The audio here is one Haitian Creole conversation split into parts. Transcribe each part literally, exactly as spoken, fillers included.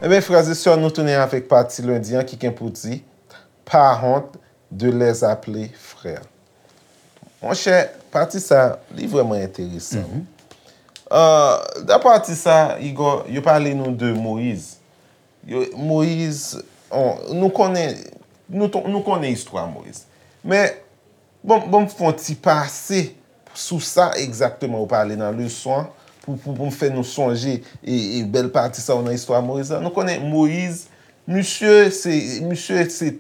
Ebyen, frè e sè, nou tounen avèk pati lendi an ki gen pou di, pa honte de les appeler frères. Monchè, pati sa, li vrèman enteresan. Euh, dan pati sa, Igor, yo pale nou de Moyiz. Yo, Moyiz, on, nou konnen, nou, ton- nou konnen istwa Moyiz. Men, bon, bon, m fè yon ti pase sou sa egzakteman ou pale nan leson an, pou, pou, pou m fè nou sonje e, e bèl pati sa yo nan istwa Moyiz la. Nou konnen Moyiz, misye se, misye se,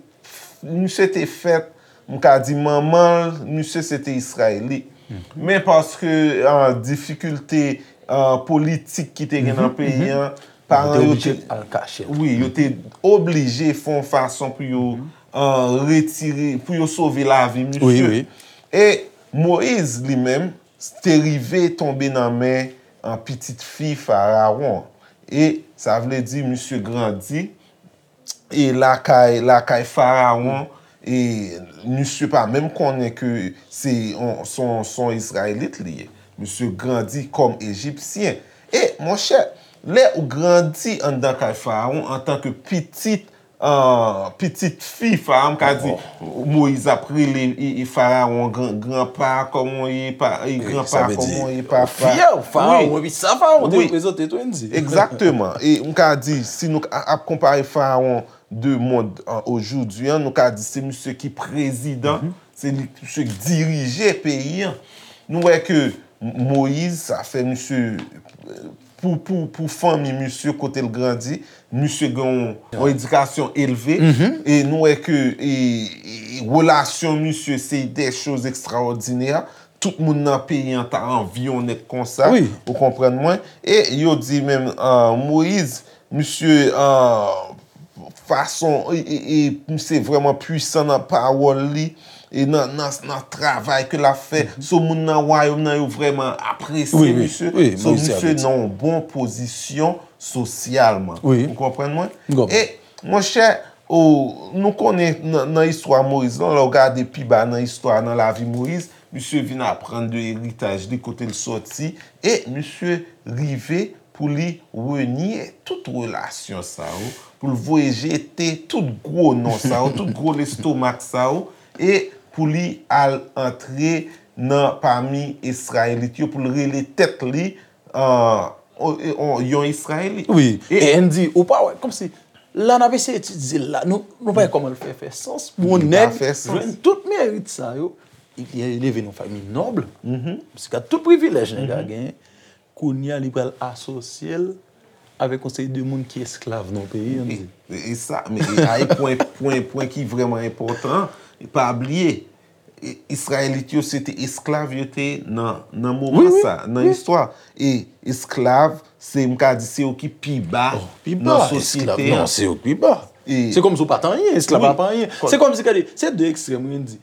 misye te fèt, m ka di manman l, misye se te Izrayelit. Men paske, ah, difikilte, ah, politik ki te gen nan peyi an, paran yo te, wi, yo te oblije fè yon fason pou yo, ah, retire, pou yo sove lavi misye. E Moyiz li menm te rive tonbe nan men, ah, pitit fi Farawon. E sa vle di misye grandi e lakay, lakay Farawon, e misye pa menm konnen ke se on, se on, se on Izrayelit li ye. Misye grandi kòm Ejipsyen. E, monchè, lè ou grandi anndan kay Farawon antanke pitit, ah, pitit fi Farawon, m ka di, Moyiz ap rele e, e Farawon gran, granpa, kòman w ye, pa, e granpa, kòman w ye, papa. Fyè, Farawon, epi sa Farawon te reprezante tou, Andy. Egzakteman. E m ka di, si nou a- ap konpare Farawon de mond an, ojoudwi an, nou ka di se misye ki prezidan, se li misye ki dirije peyi an. Nou wè ke M- Moyiz, sa fè misye, pou, pou, pou fanmi misye kote l grandi, misye gen yon, yon edikasyon elve. E nou wè ke e, e, relasyon misye se de choz ekstraòdinè. Tout moun nan peyi an ta anvi yon nèg konsa. Ou konprann mwen? E yo di menm, ah, Moyiz, misye, ah, fason, e, e, e, misye vrèman pwisan nan pawòl li, e nan, nan, nan travay ke l ap fè. So, moun nan wayòm nan, yo vrèman apresye misye. So, misye nan yon bon pozisyon sosyalman. Ou konprann mwen? E, monchè, o, nou konnen nan, nan istwa Moyiz lan, lè w gade pi ba nan istwa, nan lavi Moyiz, misye vin aprann de eritaj li, kote l sòti, e misye rive pou li renye tout relasyon sa yo, pou l voye jete tout gwo non sa yo, tout gwo lestomak sa yo, e pou li al antre nan pami Izrayelit yo, pou l rele tèt li, ah, on- on- yon Izrayelit. Wi, e Andy, ou pa wè, kòmsi, la n ap eseye etidye l la, nou, nou pa wè kòman l fè fè sans pou yon nèg jwenn tout merit sa yo, li leve nan fanmi nòb, misye gad tout privilèj nèg la genyen, kounye a li pral asosye l avèk yon seri de moun ki esklav nan peyi an. E, e sa, men e a e pwen, pwen, pwen ki vrèman enpòtan, pa bliye, e, Izrayelit yo se te esklav yo te ye nan, nan moman sa, nan istwa. E esklav, se, m ka di, se yo ki pi ba nan sosyete an. Non, se yo ki pi ba. Se kòmsi w pa t anyen, esklav pa anyen. Se kòmsi, gade, se de ekstrèm, wi, Andy.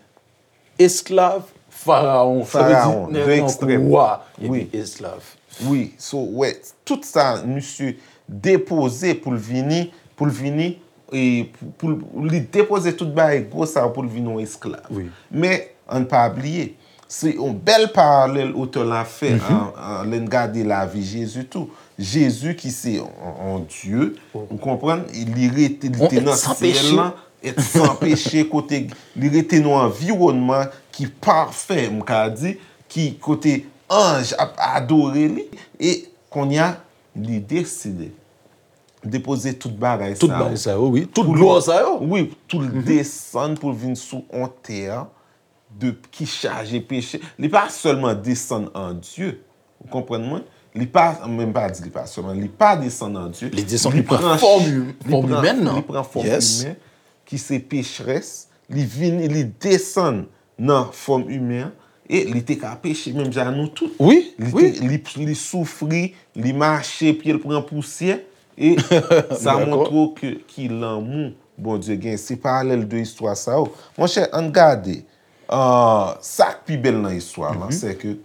Esklav, Farawon, sa vle di nèg nan kouvwa, epi esklav. Wi, so, wè, tout sa, misye depoze pou l vini, pou l vini, e pou, pou l- li depoze tout bagay gwo sa pou l vin yon esklav. Men, ann pa bliye, se yon bèl paralèl otè la fè, an, an, lè n gade lavi Jezi tou. Jezi ki se yon, yon Dye, ou konprann, li rete, li te nan syèl lan, et san peche, kote li rete nan yon anviwònman ki pafè, m ka di, ki kote anj ap adore li, e kounye a, li deside depoze tout bagay sa yo. Tout bagay sa yo, wi. Tout glwa sa yo. Wi, pou l desann, pou l vin sou yon tè de, ki chaje peche. Li pa sèlman desann an Dye. Ou konprann mwen? Li pa, men m pa di li pa sèlman, li pa desann an Dye. Li desann, li pran fòm, fòm imèn nan. Li pran fòm imèn, ki se pecherès. Li vini, li desann nan fòm imen an. E li te ka peche menm jan nou tout. Wi, li te, li, li soufri, li mache, pye l pran pousyè. E sa montre w ke ki lanmou Bondye gen. Se paralèl de istwa sa yo. Monchè, ann gade. Ah, sa k pi bèl nan istwa lan, se ke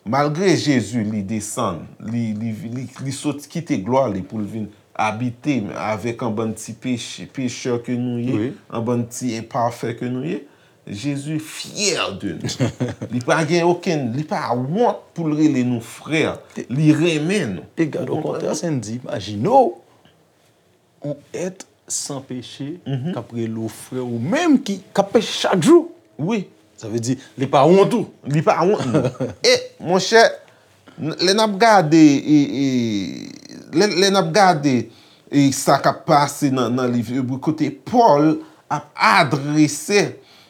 malgre Jezi li desann, li, li, li, li sot kite glwa li pou l vin abite avèk an bann ti peche, pechè ke nou ye, an bann ti enpafè ke nou ye, Jezi fyè de nou. Li pa gen okenn, li pa wont pou l rele nou frè. Li renmen nou. E gade, okontrè, Sandy, imajine w, yon èt san peche k ap rele w frè, ou menm ki, k ap peche chak jou. Wi. Sa vle di, li pa wont ou. Li pa wont nou. E, monchè, lè n ap gade, e, e, lè, lè n ap gade, e, sa k ap pase nan, nan liv Ebre, kote Pòl ap adrese,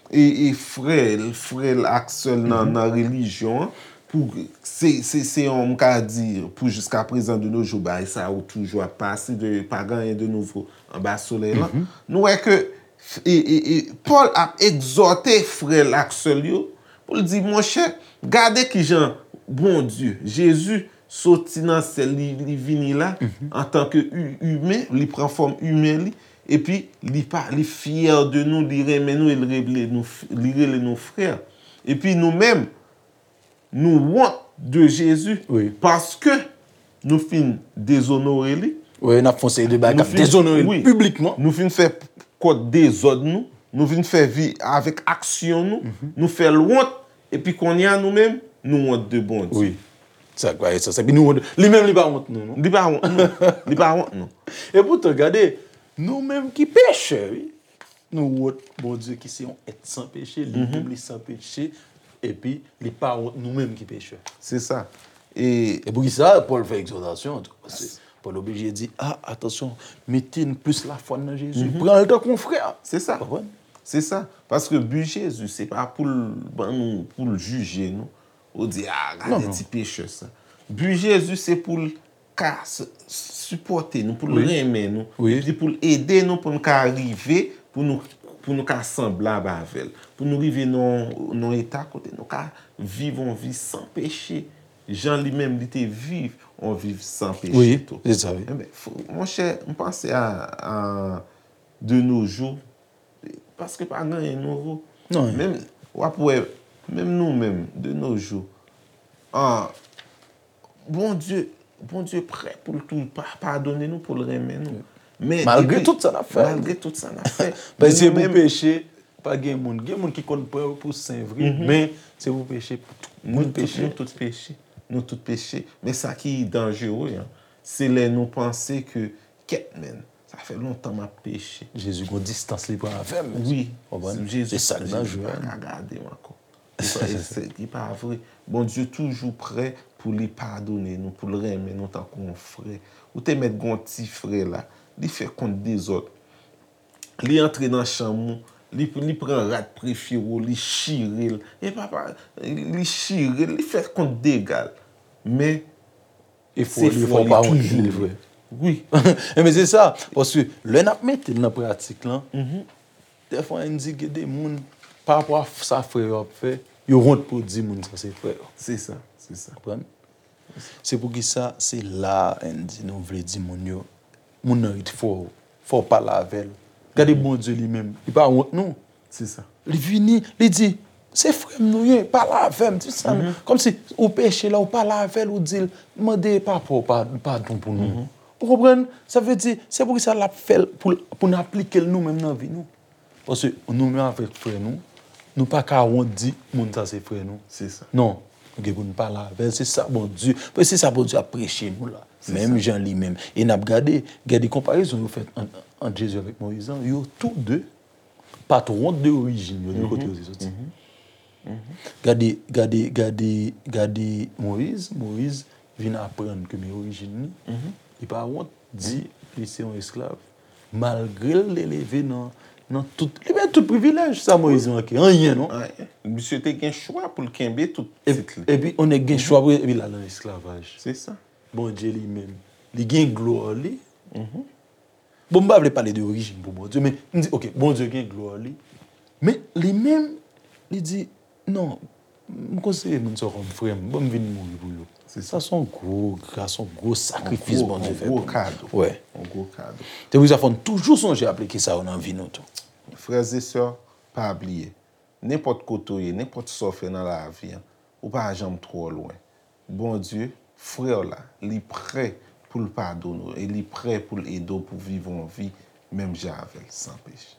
e, e frè l, frè l ak sè l nan, nan relijyon an, pou, se, se, se yon, m ka di, pou jiskaprezan de nos jours, bagay sa yo toujou ap pase, de, pa gen anyen de nouvo anba solèy lan. Nou wè ke, e, e, e, Pòl ap egzòte frè l ak sè l yo, pou l di, monchè, gade kijan Bondye, Jezi, soti nan syèl, li, li vini la, antanke hu-, imen, li pran fòm imen li, epi li pa, li fyè de nou, li renmen nou, e li rele nou f-, li rele nou frè. Epi nou menm, nou wont de Jezi, paske nou fin dezonore li. Wi, n ap fè yon seri de bagay k ap dezonore li piblikman. Nou fin fè kòd dezòd nou, nou vin fè vi avèk aksyon nou, nou fè l wont, epi kounye a nou menm, nou wont de Bondye. Wi. Sa k pa gen sans. Epi nou wont, li menm li pa wont nou, non. Li pa wont nou. Li pa wont nou. E poutan, gade, nou menm ki pechè, wi. Nou wont Bondye ki se yon èt san peche, li menm li san peche, epi li pa wont nou menm ki pechè. Se sa. E e poukisa Pòl fè egzòtasyon an tou? Paske Pòl oblije di, a, atansyon, mete n plis lafwa n nan Jezi. Pran l tankou yon frè. Se sa. Konprann? Se sa. Paske bi Jezi, se pa pou l ban nou, pou l jije nou. Ou di, a, gade ti pechè sa. Bi Jezi, se pou l ka s-, sipòte nou, pou l renmen nou, epi pou l ede nou, pou n ka rive, pou nou, pou nou ka sanblab avè l, pou nou rive nan, nan eta kote nou ka viv yon vi san peche, jan li menm li te viv yon vi san peche tou. Wi, se sa, wi. Enben, fò, monchè, m panse a, a de nos jours, paske pa gen anyen nouvo. Non. Menm, w ap wè, menm nou menm, de nos jours, ah, Bondye, Bondye prè pou l tou pa, padone nou, pou l renmen nou. Men malgre tout sa n ap fè. Malgre tout sa n ap fè. Paske se pou peche, pa gen moun. Gen moun ki konn pran yo pou sen vre, men se pou peche, pou tout moun peche. Nou tout peche. Nou tout peche. Men sa ki danjere an, se lè nou panse ke, kèt, men, sa fè lontan m ap peche. Jezi gon distans li pran avè m. Wi. Konprann? Se sa k danjere. Jezi pa ka gade m ankò. Li pa, se, li pa vre. Bondye toujou prè pou li padone nou, pou l renmen nou tankou yon frè. Ou te mèt gon ti frè la, li fè kont dezòd. Li antre nan chanm ou, li, li pran rad prefere w, li chire l. E papa, li chire l, li fè kont dega l. Men, efò li, efò w pa wont li vre. Wi. Enben, se sa. Paske lè n ap mete l nan pratik lan, dèfwa n di gen de moun, pa rapò a sa frè yo ap fè, yo wont pou di moun sa se frè yo. Se sa, se sa. Konprann? Se poukisa se la a, Andy, nou vle di moun yo, moun nan ret fò, fò w pale avè l. Gade Bondye li menm, li pa wont nou. Se sa. Li vini, li di, se frè m nou ye, pale avè m, di sa. Kòmsi ou peche la, ou pale avè l, ou di l, mande papa w pa-, padon pou nou. Ou konprann? Sa vle di, se poukisa l ap fè l pou, pou n aplike l nou menm nan vi nou. Paske nou menm avèk frè nou, nou pa ka wont di moun sa se frè nou. Se sa. Non, nou gen pou n pale avè l. Se sa Bondye, paske se sa Bondye ap preche nou la. Menm jan li menm. E n ap gade, gade konparezon yo fè ant, ant Jezi avèk Moyiz lan, yo tou de pa t wont de orijin yo, de kote yo te soti. Gade, gade, gade, gade Moyiz, Moyiz vin aprann ke men orijin li, li pa wont di li se yon esklav. Malgre l te leve nan, nan tout, li gen tout privilèj, sa Moyiz manke, anyen non. Anyen. Misye te gen chwa pou l kenbe tout tit li. Epi, yon nèg gen chwa pou, epi l al nan esklavaj. Se sa. Bondye li menm, li gen glwa li. Bon, m pa vle pale de orijin pou Bondye, men m di, oke, Bondye gen glwa li. Men li menm, li di, non, m konsidere moun sa yo kòm frè m, ban m vin mouri pou yo. Se sa. Sa se yon gwo gras, yon gwo sakrifis Bondye fè pou nou. Yon gwo kado. Wi. Yon gwo kado. Se pou sa fò n toujou sonje aplike sa yo nan vi nou tou. Frè e sè, pa bliye, nenpòt kote w ye, nenpòt sa w fè nan lavi an, ou pa janm twò lwen. Bondye, frè w la, li prè pou l padone w e li prè pou l ede w pou viv yon vi menm jan avè l, san peche.